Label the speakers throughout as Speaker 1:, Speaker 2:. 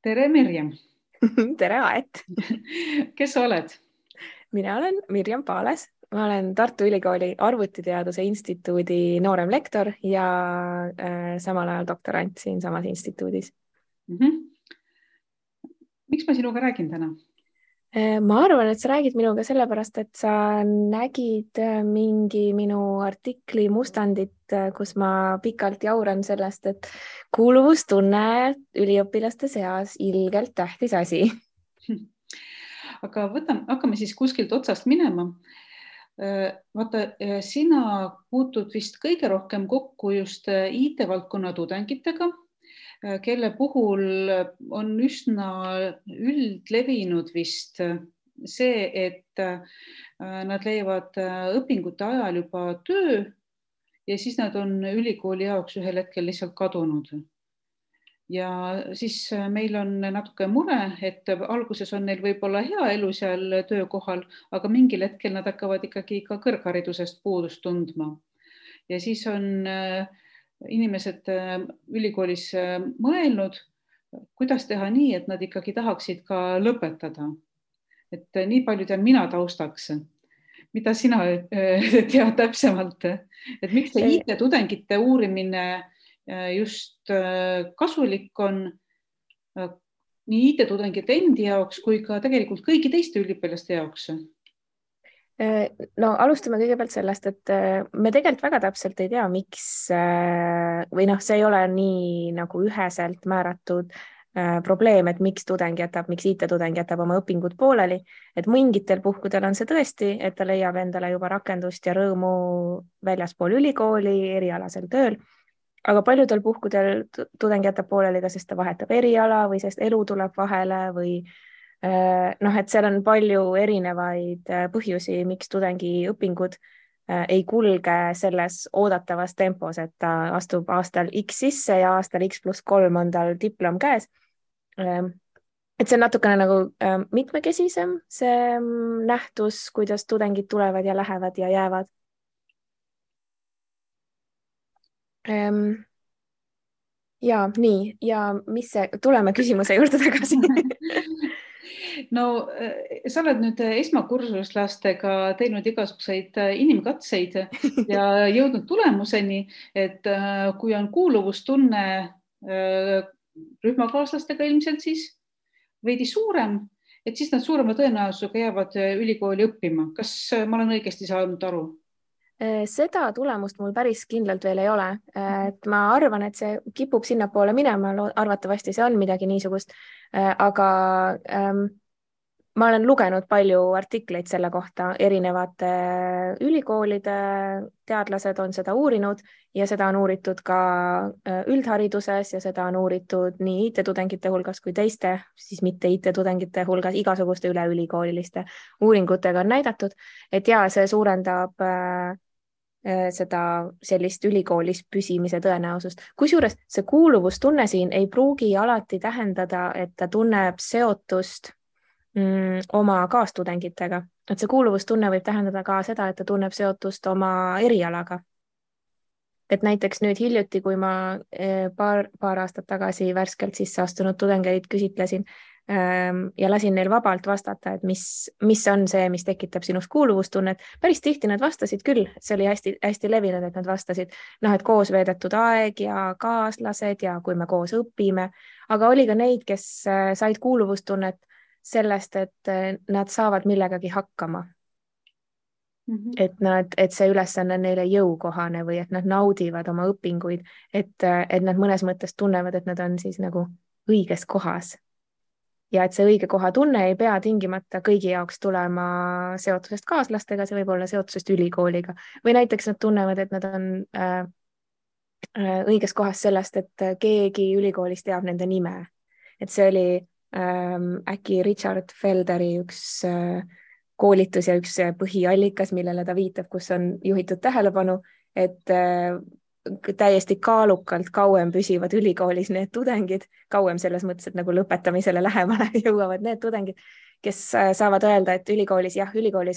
Speaker 1: Tere, Mirjam.
Speaker 2: Tere, Aet!
Speaker 1: Kes sa oled?
Speaker 2: Mina olen Mirjam Paales. Ma olen Tartu Ülikooli Arvutiteaduse Instituudi noorem lektor ja samal ajal doktorant siinsamas instituudis.
Speaker 1: Mhm. Miks ma sinuga räägin täna?
Speaker 2: Ma arvan, et sa räägid minuga sellepärast, et sa nägid mingi minu artikli mustandit, kus ma pikalt jauran sellest, et kuuluvustunne üliõpilaste seas ilgelt tähtis asi.
Speaker 1: Aga hakkame siis kuskilt otsast minema. Vaata, sina puutud vist kõige rohkem kokku just IT-valdkonna tudengitega, kelle puhul on üsna üldlevinud vist see, et nad leiavad õpingute ajal juba töö ja siis nad on ülikooli jaoks ühel hetkel lihtsalt kadunud. Ja siis meil on natuke mure, et alguses on neil võib-olla hea elu seal töökohal, aga mingil hetkel nad hakkavad ikkagi ka kõrgharidusest puudust tundma. Ja siis on inimesed ülikoolis mõelnud, kuidas teha nii, et nad ikkagi tahaksid ka lõpetada. Et nii palju tean mina taustaks. Mida sina tead täpsemalt? Et miks see IT-tudengite uurimine just kasulik on nii IT-tudengite endi jaoks kui ka tegelikult kõigi teiste üliõpilaste jaoks?
Speaker 2: No alustame kõigepealt sellest, et me tegelikult väga täpselt ei tea, miks või see ei ole nii nagu üheselt määratud probleem, et miks miks IT-tudeng jätab oma õpingud pooleli, et mingitel puhkudel on see tõesti, et ta leiab endale juba rakendust ja rõõmu väljaspool ülikooli erialasel tööl, aga paljudel puhkudel tudeng jätab pooleli ka, sest ta vahetab eriala või sest elu tuleb vahele või et seal on palju erinevaid põhjusi, miks tudengi õpingud ei kulge selles oodatavas tempos, et ta astub aastal X sisse ja aastal X+3 on tal diplom käes. Et see on natukene nagu mitmekesisem see nähtus, kuidas tudengid tulevad ja lähevad ja jäävad. Ja nii, ja tuleme küsimuse juurde tagasi.
Speaker 1: No sa oled nüüd esmakursuslastega teinud igasuguseid inimkatseid ja jõudnud tulemuseni, et kui on kuuluvustunne rühmakaaslastega ilmselt siis veidi suurem, et siis nad suurema tõenäosusega jäävad ülikooli õppima. Kas ma olen õigesti saanud aru?
Speaker 2: Seda tulemust mul päris kindlalt veel ei ole. Et ma arvan, et see kipub sinnapoole minema, arvatavasti see on midagi niisugust, aga ma olen lugenud palju artikleid selle kohta, erinevate ülikoolide teadlased on seda uurinud ja seda on uuritud ka üldhariduses ja seda on uuritud nii IT-tudengite hulgas kui teiste, siis mitte IT-tudengite hulgas, igasuguste üleülikooliliste uuringutega on näidatud, et ja see suurendab seda sellist ülikoolis püsimise tõenäosust. Kusjuures see kuuluvustunne siin ei pruugi alati tähendada, et ta tunneb seotust oma kaastudengitega, et see kuuluvustunne võib tähendada ka seda, et ta tunneb seotust oma erialaga. Et näiteks nüüd hiljuti, kui ma paar aastat tagasi värskelt sisse astunud tudengeid küsitlesin ja lasin neil vabalt vastata, et mis on see, mis tekitab sinust kuuluvustunnet. Päris tihti nad vastasid küll, see oli hästi levinud, et nad vastasid, et koos veedetud aeg ja kaaslased ja kui me koos õpime, aga oli ka neid, kes said kuuluvustunnet sellest, et nad saavad millegagi hakkama. Et see ülesanne on neile jõukohane või et nad naudivad oma õpinguid, et nad mõnes mõttes tunnevad, et nad on siis nagu õiges kohas. Ja et see õige koha tunne ei pea tingimata kõigi jaoks tulema seotusest kaaslastega, see võib olla seotusest ülikooliga. Või näiteks nad tunnevad, et nad on õiges kohas sellest, et keegi ülikoolis teab nende nime. Et see oli äkki Richard Felderi üks koolitus ja üks põhiallikas, millele ta viitab, kus on juhitud tähelepanu, et täiesti kaalukalt kauem püsivad ülikoolis need tudengid, kauem selles mõttes, et nagu lõpetamisele lähemale jõuavad need tudengid, kes saavad öelda, et ülikoolis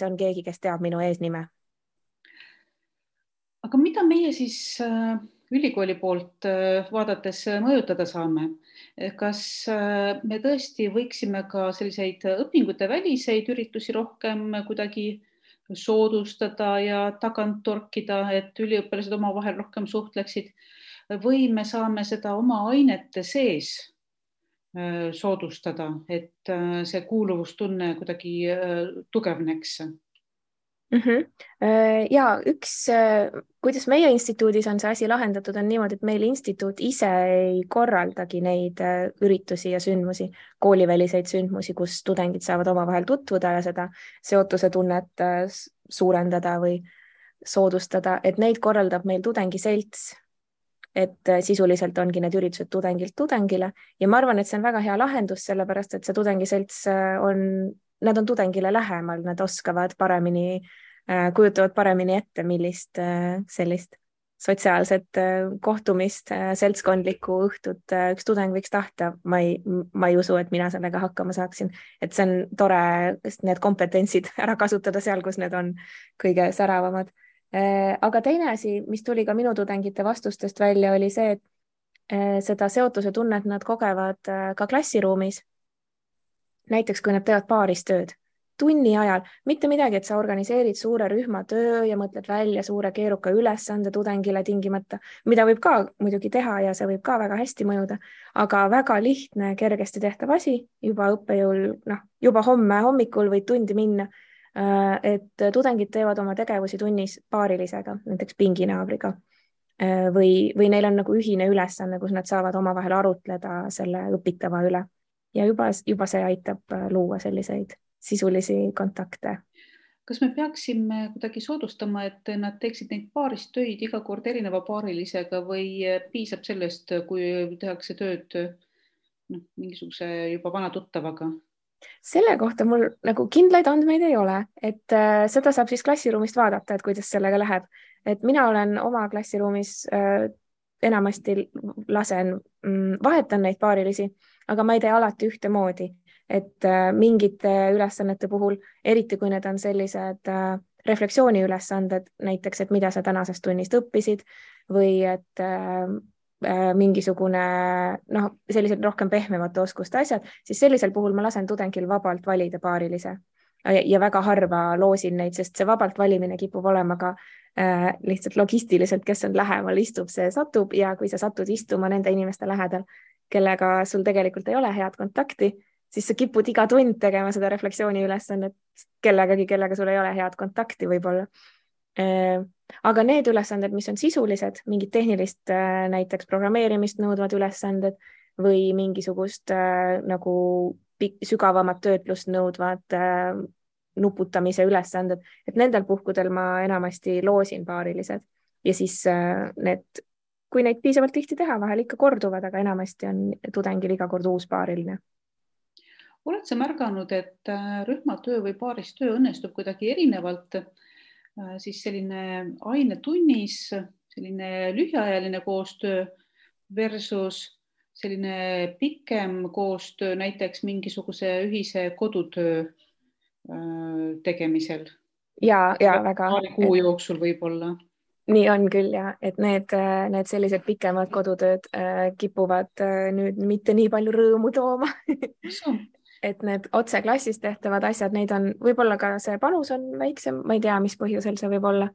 Speaker 2: on keegi, kes teab minu eesnime.
Speaker 1: Aga mida meie siis ülikooli poolt vaadates mõjutada saame. Kas me tõesti võiksime ka selliseid õpingute väliseid üritusi rohkem kuidagi soodustada ja tagant torkida, et üliõpilased omavahel rohkem suhtleksid või me saame seda oma ainete sees soodustada, et see kuuluvustunne kuidagi tugevneks?
Speaker 2: Ja kuidas meie instituudis on see asi lahendatud, on niimoodi, et meil instituut ise ei korraldagi neid üritusi ja sündmusi, kooliväliseid sündmusi, kus tudengid saavad omavahel tutvuda ja seda seotuse tunnet suurendada või soodustada, et neid korraldab meil tudengiselts, et sisuliselt ongi need üritused tudengilt tudengile ja ma arvan, et see on väga hea lahendus, sellepärast et see tudengiselts nad on tudengile lähemal, nad oskavad paremini, kujutavad paremini ette, millist sellist sotsiaalset kohtumist, seltskondlikku õhtut üks tudeng võiks tahta. Ma ei usu, et mina sellega hakkama saaksin, et see on tore need kompetentsid ära kasutada seal, kus need on kõige säravamad. Aga teine asi, mis tuli ka minu tudengite vastustest välja, oli see, et seda seotuse tunnet nad kogevad ka klassiruumis. Näiteks, kui nad teevad paaris tööd, tunni ajal, mitte midagi, et sa organiseerid suure rühma töö ja mõtled välja suure keeruka ülesande tudengile tingimata, mida võib ka muidugi teha ja see võib ka väga hästi mõjuda, aga väga lihtne, kergesti tehtav asi juba õppejõul, juba homme hommikul võid tundi minna, et tudengid teevad oma tegevusi tunnis paarilisega, näiteks pinginaabriga või neil on nagu ühine ülesanne, kus nad saavad omavahel arutleda selle õpitava üle. Ja juba see aitab luua selliseid sisulisi kontakte.
Speaker 1: Kas me peaksime kuidagi soodustama, et nad teeksid neid paarist töid iga kord erineva paarilisega või piisab sellest, kui tehakse tööd mingisuguse juba vana tuttavaga?
Speaker 2: Selle kohta mul nagu kindlaid andmeid ei ole, et seda saab siis klassiruumist vaadata, et kuidas sellega läheb. Et mina olen oma klassiruumis enamasti vahetan neid paarilisi, aga ma ei tee alati ühtemoodi, et mingite ülesannete puhul, eriti kui need on sellised refleksiooniülesanded, näiteks, et mida sa tänasest tunnist õppisid või et mingisugune sellised rohkem pehmemate oskuste asjad, siis sellisel puhul ma lasen tudengil vabalt valida paarilise ja väga harva loosin neid, sest see vabalt valimine kipub olema ka lihtsalt logistiliselt, kes on lähemal, istub, see satub ja kui sa satud istuma nende inimeste lähedal, kellega sul tegelikult ei ole head kontakti, siis sa kipud iga tund tegema seda refleksiooni ülesannet kellegagi, kellega sul ei ole head kontakti võib-olla. Aga need ülesanded, mis on sisulised, mingid tehnilist näiteks programmeerimist nõudvad ülesanded või mingisugust nagu sügavamat töötlust nõudvad nuputamise ülesanded, et nendel puhkudel ma enamasti loosin paarilised ja siis kui neid piisavalt tihti teha, vahel ikka korduvad, aga enamasti on tudengil iga kord uus paariline.
Speaker 1: Oled sa märganud, et rühmatöö või paaristöö õnnestub kuidagi erinevalt, siis selline ainetunnis, selline lühiajaline koostöö versus selline pikem koostöö näiteks mingisuguse ühise kodutöö tegemisel?
Speaker 2: Ja väga.
Speaker 1: Paari kuu jooksul võib-olla.
Speaker 2: Nii on küll ja, et need sellised pikemad kodutööd kipuvad nüüd mitte nii palju rõõmu tooma. Et need otse klassis tehtavad asjad, neid on võib-olla ka see panus on väiksem, ma ei tea, mis põhjusel see võib olla.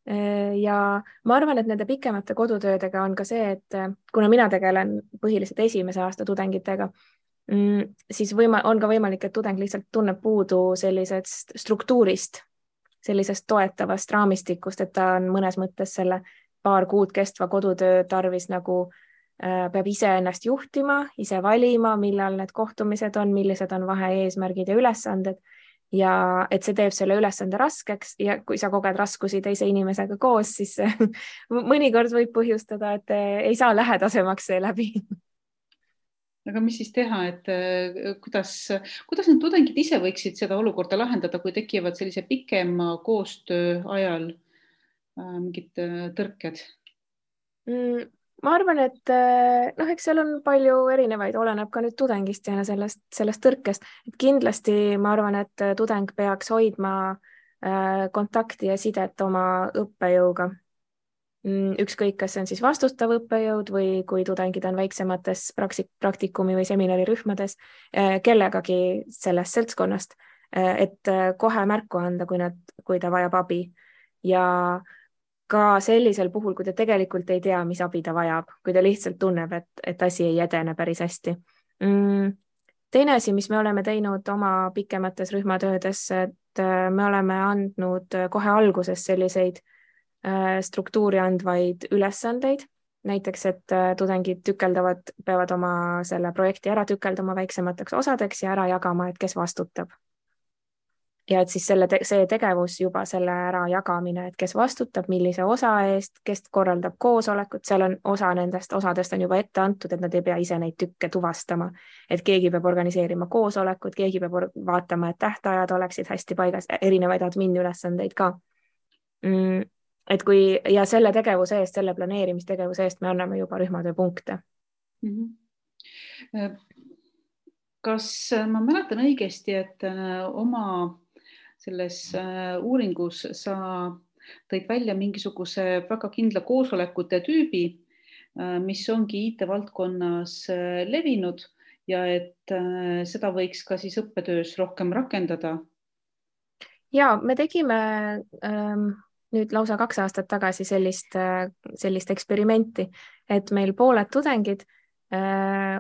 Speaker 2: Ja ma arvan, et nende pikemate kodutöödega on ka see, et kuna mina tegelen põhiliselt esimese aasta tudengitega, siis on ka võimalik, et tudeng lihtsalt tunneb puudu sellisest struktuurist, sellisest toetavast raamistikust, et ta on mõnes mõttes selle paar kuud kestva kodutöö tarvis nagu peab ise ennast juhtima, ise valima, millal need kohtumised on, millised on vahe-eesmärgid ja ülesanded ja et see teeb selle ülesande raskeks ja kui sa koged raskusi teise inimesega koos, siis mõnikord võib põhjustada, et ei saa lähedasemaks see läbi.
Speaker 1: Aga mis siis teha, et kuidas need tudengid ise võiksid seda olukorda lahendada, kui tekivad sellise pikema koostöö ajal mingid tõrked?
Speaker 2: Ma arvan, et eks seal on palju erinevaid, oleneb ka nüüd tudengist ja sellest tõrkest. Et kindlasti ma arvan, et tudeng peaks hoidma kontakti ja sidet oma õppejõuga. ükskõik, kas see on siis vastutav õppejõud või kui tudengid on väiksemates praktikumi või seminarirühmades, kellegagi sellest seltskonnast, et kohe märku anda, kui ta vajab abi. Ja ka sellisel puhul, kui ta tegelikult ei tea, mis abi ta vajab, kui ta lihtsalt tunneb, et asi ei edene päris hästi. Teine asi, mis me oleme teinud oma pikemates rühmatöödes, et me oleme andnud kohe alguses selliseid struktuuri andvaid ülesandeid, näiteks, et tudengid peavad oma selle projekti ära tükeldama väiksemateks osadeks ja ära jagama, et kes vastutab. Ja et siis see tegevus juba selle ära jagamine, et kes vastutab, millise osa eest, kes korraldab koosolekut, seal on osadest on juba ette antud, et nad ei pea ise neid tükke tuvastama, et keegi peab organiseerima koosolekut, keegi peab vaatama, et tähtajad oleksid hästi paigas, erinevaid admin ülesandeid ka. Et ja selle tegevuse eest, selle planeerimistegevuse eest me anname juba rühmatöö punkte.
Speaker 1: Kas ma mäletan õigesti, et oma selles uuringus sa tõid välja mingisuguse väga kindla koosolekute tüübi, mis ongi IT-valdkonnas levinud ja et seda võiks ka siis õppetöös rohkem rakendada?
Speaker 2: Ja me tegime nüüd lausa 2 aastat tagasi sellist eksperimenti, et meil pooled tudengid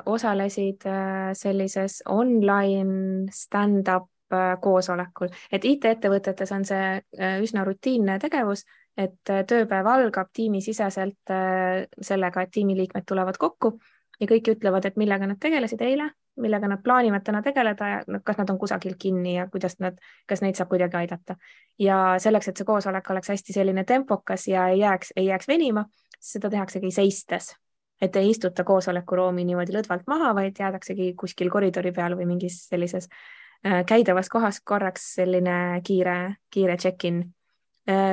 Speaker 2: osalesid sellises online stand-up koosolekul, et IT-ettevõtetes on see üsna rutiinne tegevus, et tööpäev algab tiimisiseselt sellega, et tiimiliikmed tulevad kokku ja kõik ütlevad, et millega nad tegelesid eile, millega nad plaanivad täna tegeleda ja kas nad on kusagil kinni ja kas neid saab kuidagi aidata. Ja selleks, et see koosolek oleks hästi selline tempokas ja ei jääks venima, seda tehaksegi seistes. Et ei istuta koosolekuruumi niimoodi lõdvalt maha, vaid jäädaksegi kuskil koridori peal või mingis sellises käidavas kohas korraks selline kiire check-in.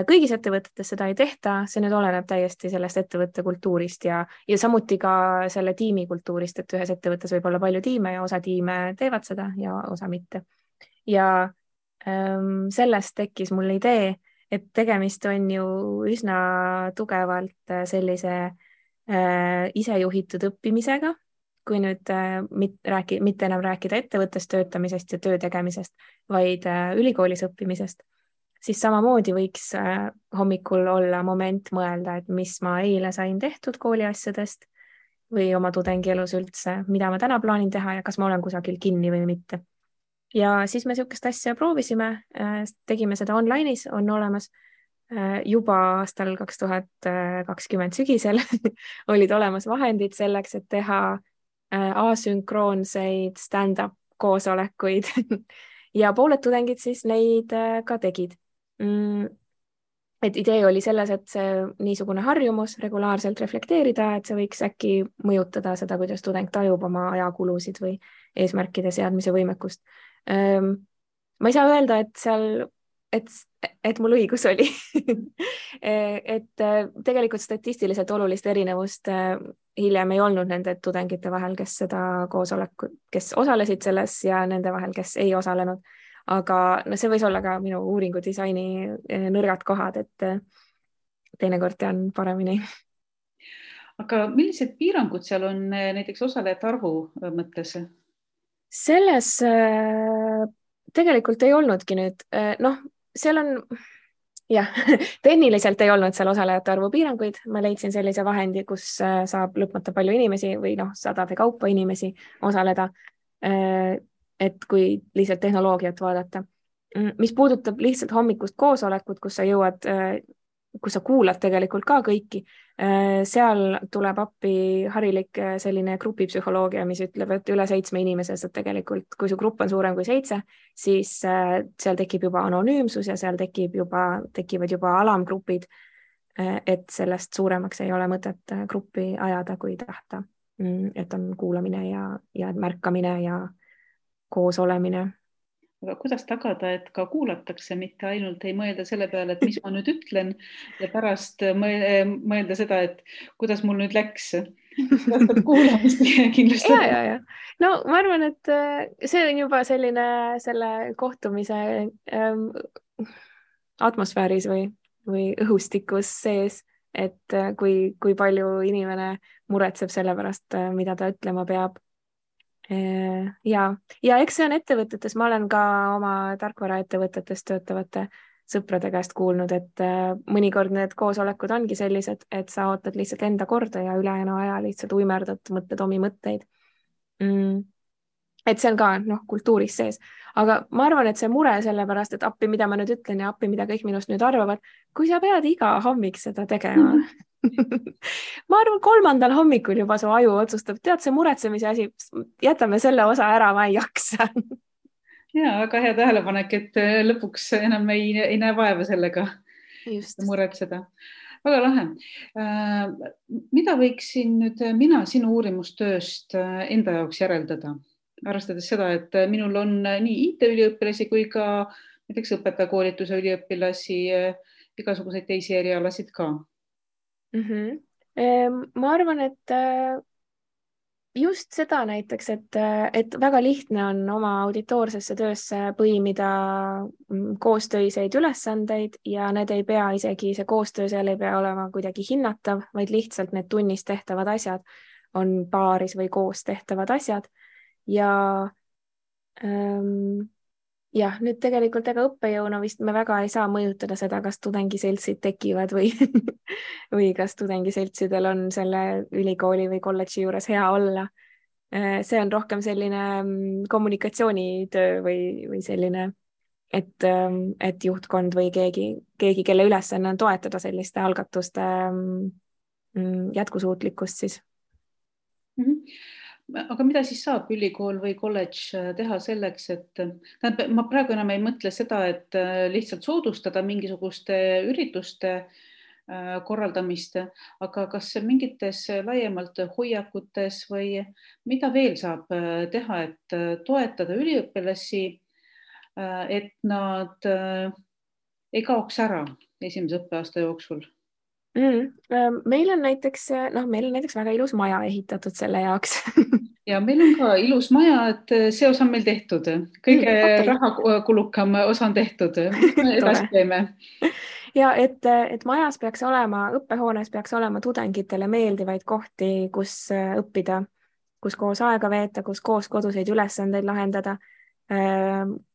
Speaker 2: Kõigis ettevõtetes seda ei tehta, see nüüd oleneb täiesti sellest ettevõtte kultuurist ja samuti ka selle tiimi kultuurist, et ühes ettevõttes võib olla palju tiime ja osa tiime teevad seda ja osa mitte. Ja sellest tekkis mul idee, et tegemist on ju üsna tugevalt sellise isejuhitud õppimisega, kui nüüd mitte enam rääkida ettevõttes töötamisest ja töö tegemisest, vaid ülikoolis õppimisest, siis samamoodi võiks hommikul olla moment mõelda, et mis ma eile sain tehtud kooliasjadest või oma tudengielus üldse, mida ma täna plaanin teha ja kas ma olen kusagil kinni või mitte. Ja siis me niisugust asja proovisime, tegime seda online'is, on olemas juba aastal 2020 sügisel olid olemas vahendid selleks, et teha asünkroonseid stand-up koosolekuid ja pooled tudengid siis neid ka tegid. Et idee oli selles, et see niisugune harjumus regulaarselt reflekteerida, et see võiks äkki mõjutada seda, kuidas tudeng tajub oma ajakulusid või eesmärkide seadmise võimekust. Ma ei saa öelda, et mul õigus oli et tegelikult statistiliselt olulist erinevust hiljem ei olnud nende tudengite vahel, kes osalesid selles ja nende vahel, kes ei osalenud. Aga see võis olla ka minu uuringu disaini nõrgad kohad, et teinekord tean paremini.
Speaker 1: Aga millised piirangud seal on näiteks osalejate arvu mõttes?
Speaker 2: Selles tegelikult ei olnudki nüüd, seal on tehniliselt ei olnud seal osalejate arvu piiranguid. Ma leidsin sellise vahendi, kus saab lõpmata palju inimesi või sadade kaupa inimesi osaleda, et kui lihtsalt tehnoloogiat vaadata. Mis puudutab lihtsalt hommikust koosolekut, kus sa kuulad tegelikult ka kõiki, seal tuleb appi harilik selline grupipsühholoogia, mis ütleb, et üle 7 inimese saab tegelikult, kui su grupp on suurem kui 7, siis seal tekib juba anonüümsus ja seal tekivad juba alamgrupid, et sellest suuremaks ei ole mõtet gruppi ajada, kui tahta, et on kuulamine ja märkamine ja koos olemine.
Speaker 1: Aga kuidas tagada, et ka kuulatakse, mitte ainult ei mõelda selle peale, et mis ma nüüd ütlen ja pärast mõelda seda, et kuidas mul nüüd läks. Kuulamist kindlasti.
Speaker 2: Ja. No ma arvan, et see on juba selline selle kohtumise atmosfääris või õhustikus sees, et kui palju inimene muretseb selle pärast, mida ta ütlema peab. Ja eks see on ettevõtetes, ma olen ka oma tarkvaraettevõtetes töötavate sõprade käest kuulnud, et mõnikord need koosolekud ongi sellised, et sa ootad lihtsalt enda korda ja ülejäänu aja lihtsalt uimerdad, mõtled omi mõtteid. Et see on ka kultuuris sees, aga ma arvan, et see mure sellepärast, et appi, mida ma nüüd ütlen ja appi, mida kõik minust nüüd arvavad, kui sa pead iga hommik seda tegema ma arvan, 3. hommikul juba su aju otsustab, tead, see muretsemise asi, jätame selle osa ära, ma ei jaksa
Speaker 1: ja väga hea tähelepanek, et lõpuks enam ei näe vaeva sellega muretseda. Väga lahe. Mida võiksin nüüd mina sinu uurimustööst enda jaoks järeldada? Arvestades seda, et minul on nii IT-üliõpilasi kui ka näiteks õpetajakoolituse üliõpilasi, igasuguseid teisi erialasid ka.
Speaker 2: Ma arvan, et just seda näiteks, et väga lihtne on oma auditoorsesse töösse põimida koostöiseid ülesandeid ja need ei pea isegi, see koostöö seal ei pea olema kuidagi hinnatav, vaid lihtsalt need tunnis tehtavad asjad on paaris või koos tehtavad asjad. Ja nüüd tegelikult ega õppejõuna vist me väga ei saa mõjutada seda, kas tudengiseltsid tekivad või, või kas tudengiseltsidel on selle ülikooli või kolledži juures hea olla. See on rohkem selline kommunikatsioonitöö või selline, et juhtkond või keegi, kelle ülesanne on toetada selliste algatuste jätkusuutlikkust siis.
Speaker 1: Aga mida siis saab ülikool või kolledž teha selleks, et ma praegu enam ei mõtle seda, et lihtsalt soodustada mingisuguste ürituste korraldamist, aga kas mingites laiemalt hoiakutes või mida veel saab teha, et toetada üliõpilasi, et nad ei kaoks ära esimese õppeaasta jooksul?
Speaker 2: Meil on näiteks väga ilus maja ehitatud selle jaoks
Speaker 1: ja meil on ka ilus maja, et see osa on meil tehtud. Kõige rahakulukam osa on tehtud. Edasi teeme.
Speaker 2: Ja et majas peaks olema, õppehoones peaks olema tudengitele meeldivaid kohti, kus õppida, kus koos aega veeta, kus koos koduseid ülesandeid lahendada,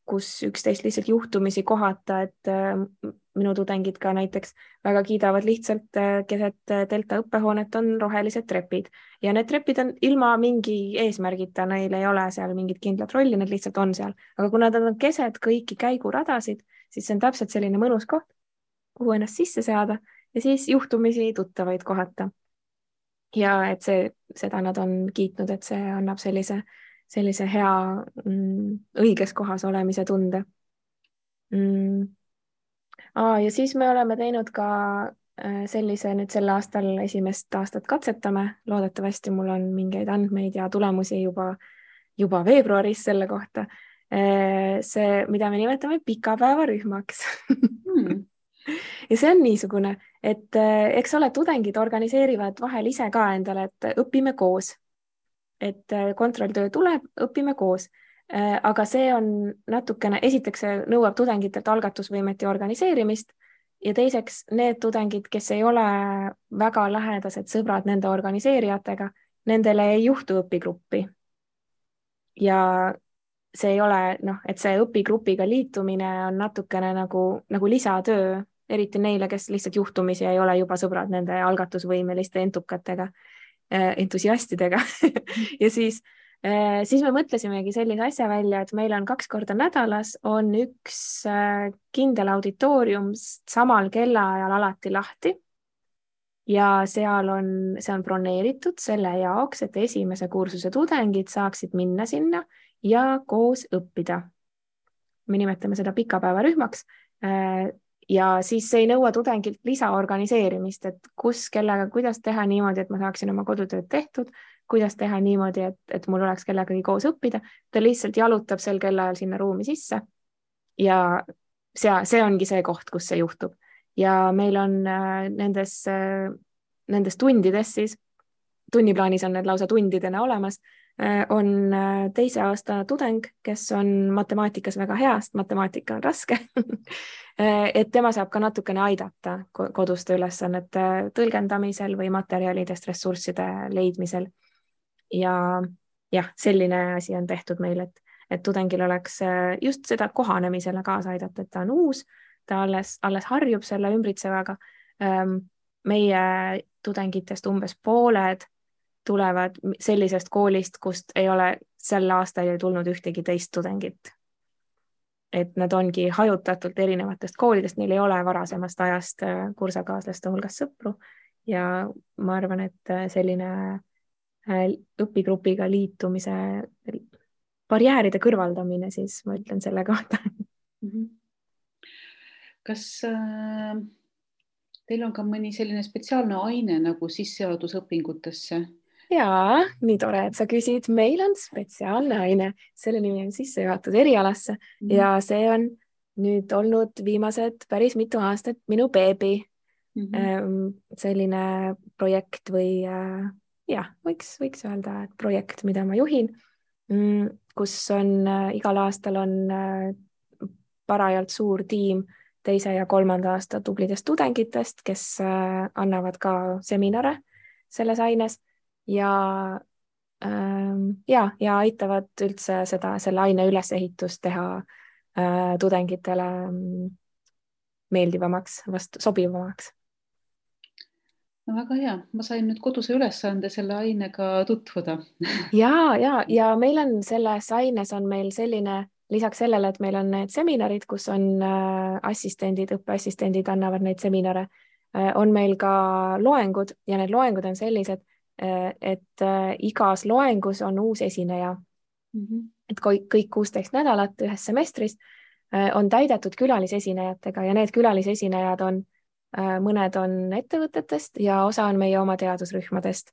Speaker 2: kus üksteist lihtsalt juhtumisi kohata, et minu tudengid ka näiteks väga kiidavad lihtsalt keset Delta õppehoonet on rohelised trepid ja need trepid on ilma mingi eesmärgita, neil ei ole seal mingit kindlat rolli, need lihtsalt on seal, aga kuna nad on keset kõiki käiguradasid, siis see on täpselt selline mõnus koht, kuhu ennast sisse seada ja siis juhtumisi tuttavaid kohata. Ja et seda nad on kiitnud, et see annab sellise hea õiges kohas olemise tunde. Ja siis me oleme teinud ka sellise nüüd sel aastal esimest aastat katsetame. Loodetavasti mul on mingeid andmeid ja tulemusi juba veebruaris selle kohta. See, mida me nimetame pikapäevarühmaks. Ja see on niisugune, et eks ole, tudengid organiseerivad vahel ise ka endale, et õpime koos. Et kontrolltöö tuleb, õpime koos. Aga see on natukene, esiteks see nõuab tudengitelt algatusvõimet ja organiseerimist ja teiseks need tudengid, kes ei ole väga lähedased sõbrad nende organiseerijatega, nendele ei juhtu õpigruppi. Ja see ei ole, et see õpigrupiga liitumine on natukene nagu lisatöö, eriti neile, kes lihtsalt juhtumisi ei ole juba sõbrad nende algatusvõimeliste entusiastidega ja siis me mõtlesimegi sellise asja välja, et meil on 2 korda nädalas on üks kindel auditoorium samal kellaajal alati lahti ja see on broneeritud selle jaoks, et esimese kursuse tudengid saaksid minna sinna ja koos õppida. Me nimetame seda pikapäevarühmaks ja siis see ei nõua tudengilt lisaorganiseerimist, et kus, kellega, kuidas teha niimoodi, et ma saaksin oma kodutööd tehtud, kuidas teha niimoodi, et mul oleks kellegagi koos õppida. Ta lihtsalt jalutab sel kellaajal sinna ruumi sisse ja see ongi see koht, kus see juhtub. Ja meil on nendes tundides siis, tunniplaanis on need lausa tundidena olemas, on teise aasta tudeng, kes on matemaatikas väga hea, sest matemaatika on raske et tema saab ka natukene aidata koduste ülesannete tõlgendamisel või materjalidest ressursside leidmisel. Ja jah, selline asi on tehtud meil, et tudengil oleks just seda kohanemisele kaasa aidata, et ta on uus, ta alles harjub selle ümbritsevaga. Meie tudengitest umbes pooled tulevad sellisest koolist, kust ei ole sel aastal ei tulnud ühtegi teist tudengit. Et nad ongi hajutatult erinevatest koolidest, neil ei ole varasemast ajast kursakaaslaste hulgas sõpru ja ma arvan, et selline õpigrupiga liitumise barjääride kõrvaldamine, siis ma ütlen selle kohta.
Speaker 1: Kas teil on ka mõni selline spetsiaalne aine nagu sisseadusõpingutesse?
Speaker 2: Jaa, nii tore, et sa küsid. Meil on spetsiaalne aine, selle nimi on sissejuhatus erialasse ja see on nüüd olnud viimased päris mitu aastat minu beebi. Selline projekt või jah, võiks öelda, et projekt, mida ma juhin, kus on igal aastal on parajalt suur tiim teise ja kolmanda aasta tublidest tudengitest, kes annavad ka seminare selles aines ja aitavad üldse selle aine ülesehitust teha tudengitele meeldivamaks, sobivamaks.
Speaker 1: No väga hea, ma sain nüüd koduse ülesande selle ainega tutvuda.
Speaker 2: ja meil on selles aines on meil selline, lisaks sellele, et meil on need seminarid, kus on õppeassistendid annavad neid seminare, on meil ka loengud ja need loengud on sellised, et igas loengus on uus esineja. Et kõik 16 nädalat ühes semestris on täidetud külalisesinejatega ja need külalisesinejad on mõned on ettevõtetest ja osa on meie oma teadusrühmadest.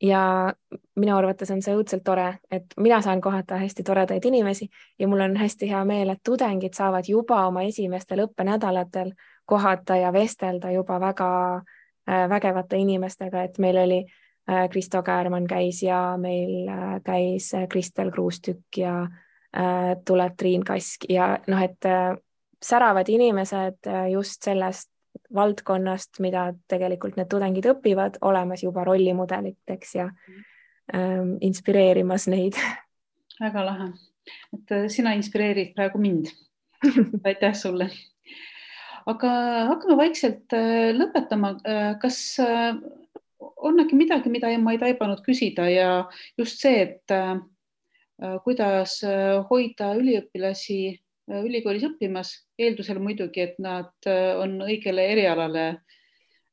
Speaker 2: Ja minu arvates on see õudselt tore, et mina saan kohata hästi toredaid inimesi ja mul on hästi hea meel, et tudengid saavad juba oma esimestel õppenädalatel kohata ja vestelda juba väga vägevate inimestega, et meil oli Kristo Käärmann käis ja meil käis Kristel Kruustükk ja tuleb Triin Kask ja et säravad inimesed just sellest valdkonnast, mida tegelikult need tudengid õpivad, olemas juba rollimudeliteks ja inspireerimas neid.
Speaker 1: Väga lahe, et sina inspireerid praegu mind. Aitäh sulle. Aga hakkame vaikselt lõpetama. Kas on äkki midagi, mida ma ei taibanud küsida ja just see, et kuidas hoida üliõpilasi ülikoolis õppimas, eeldusel muidugi, et nad on õigele erialale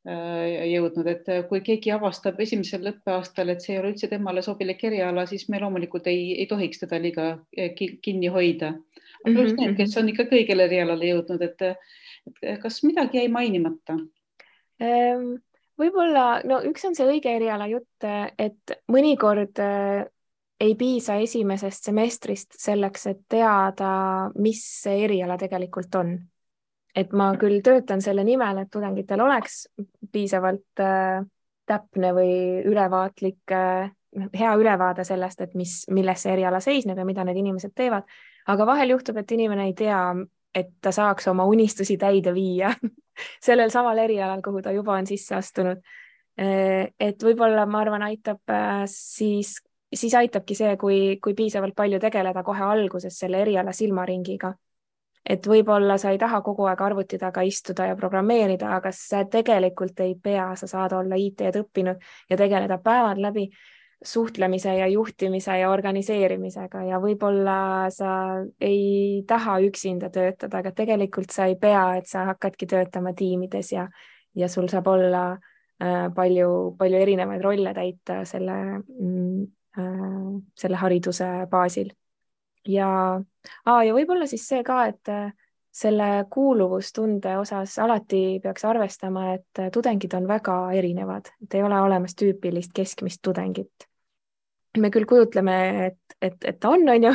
Speaker 1: jõudnud, et kui keegi avastab esimesel õppeaastal, et see ei ole üldse temale sobilik eriala, siis me loomulikult ei tohiks teda liiga kinni hoida. Aga just need, kes on ikka kõigele erialale jõudnud, et kas midagi jäi mainimata?
Speaker 2: Võib-olla, üks on see õige eriala jutt, et mõnikord ei piisa esimesest semestrist selleks, et teada, mis see eriala tegelikult on. Et ma küll töötan selle nimel, et tudengitel oleks piisavalt täpne või ülevaatlik, hea ülevaade sellest, et milles see eriala seisneb ja mida need inimesed teevad. Aga vahel juhtub, et inimene ei tea, et ta saaks oma unistusi täide viia sellel samal erialal, kuhu ta juba on sisse astunud. Et võib-olla, ma arvan, aitab siis aitabki see, kui piisavalt palju tegeleda kohe alguses selle eriala silmaringiga. Et võib-olla sa ei taha kogu aeg arvuti taga istuda ja programmeerida, aga sa tegelikult ei pea, sa saad olla IT-d õppinud ja tegeleda päevad läbi suhtlemise ja juhtimise ja organiseerimisega ja võib-olla sa ei taha üksinda töötada, aga tegelikult sa ei pea, et sa hakkadki töötama tiimides ja sul saab olla palju erinevaid rolle täita selle hariduse baasil. Ja võib-olla siis see ka, et selle kuuluvustunde osas alati peaks arvestama, et tudengid on väga erinevad, et ei ole olemas tüüpilist keskmist tudengit. Me küll kujutleme, et ta on ju,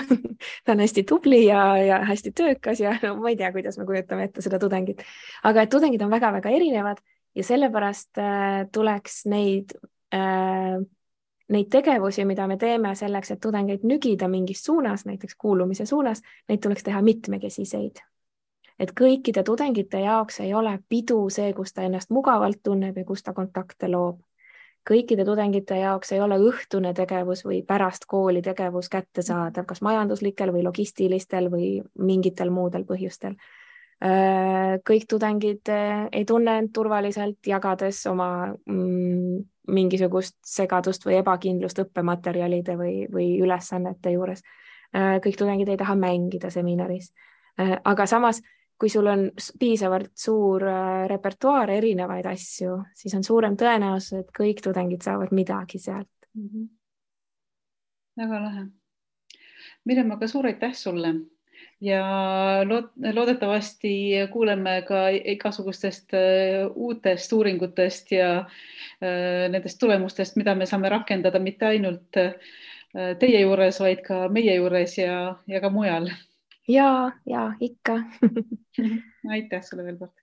Speaker 2: ta on hästi tubli ja hästi töökas ja ma ei tea, kuidas me kujutame ette seda tudengit, aga et tudengid on väga-väga erinevad ja sellepärast tuleks neid tegevusi, mida me teeme selleks, et tudengeid nügida mingis suunas, näiteks kuulumise suunas, neid tuleks teha mitmekesiseid. Et kõikide tudengite jaoks ei ole pidu see, kus ta ennast mugavalt tunneb ja kus ta kontakte loob. Kõikide tudengite jaoks ei ole õhtune tegevus või pärast kooli tegevus kättesaadav, kas majanduslikel või logistilistel või mingitel muudel põhjustel. Kõik tudengid ei tunne end turvaliselt, jagades oma mingisugust segadust või ebakindlust õppematerjalide või ülesannete juures. Kõik tudengid ei taha mängida seminaris. Aga samas, kui sul on piisavalt suur repertuaar erinevaid asju, siis on suurem tõenäosus, et kõik tudengid saavad midagi sealt.
Speaker 1: Väga lahe. Mirjam, aga suur aitäh sulle ja loodetavasti kuuleme ka igasugustest uutest uuringutest ja nendest tulemustest, mida me saame rakendada mitte ainult teie juures, vaid ka meie juures ja ka mujal.
Speaker 2: Ja ikka.
Speaker 1: Aitäh sulle veel kord.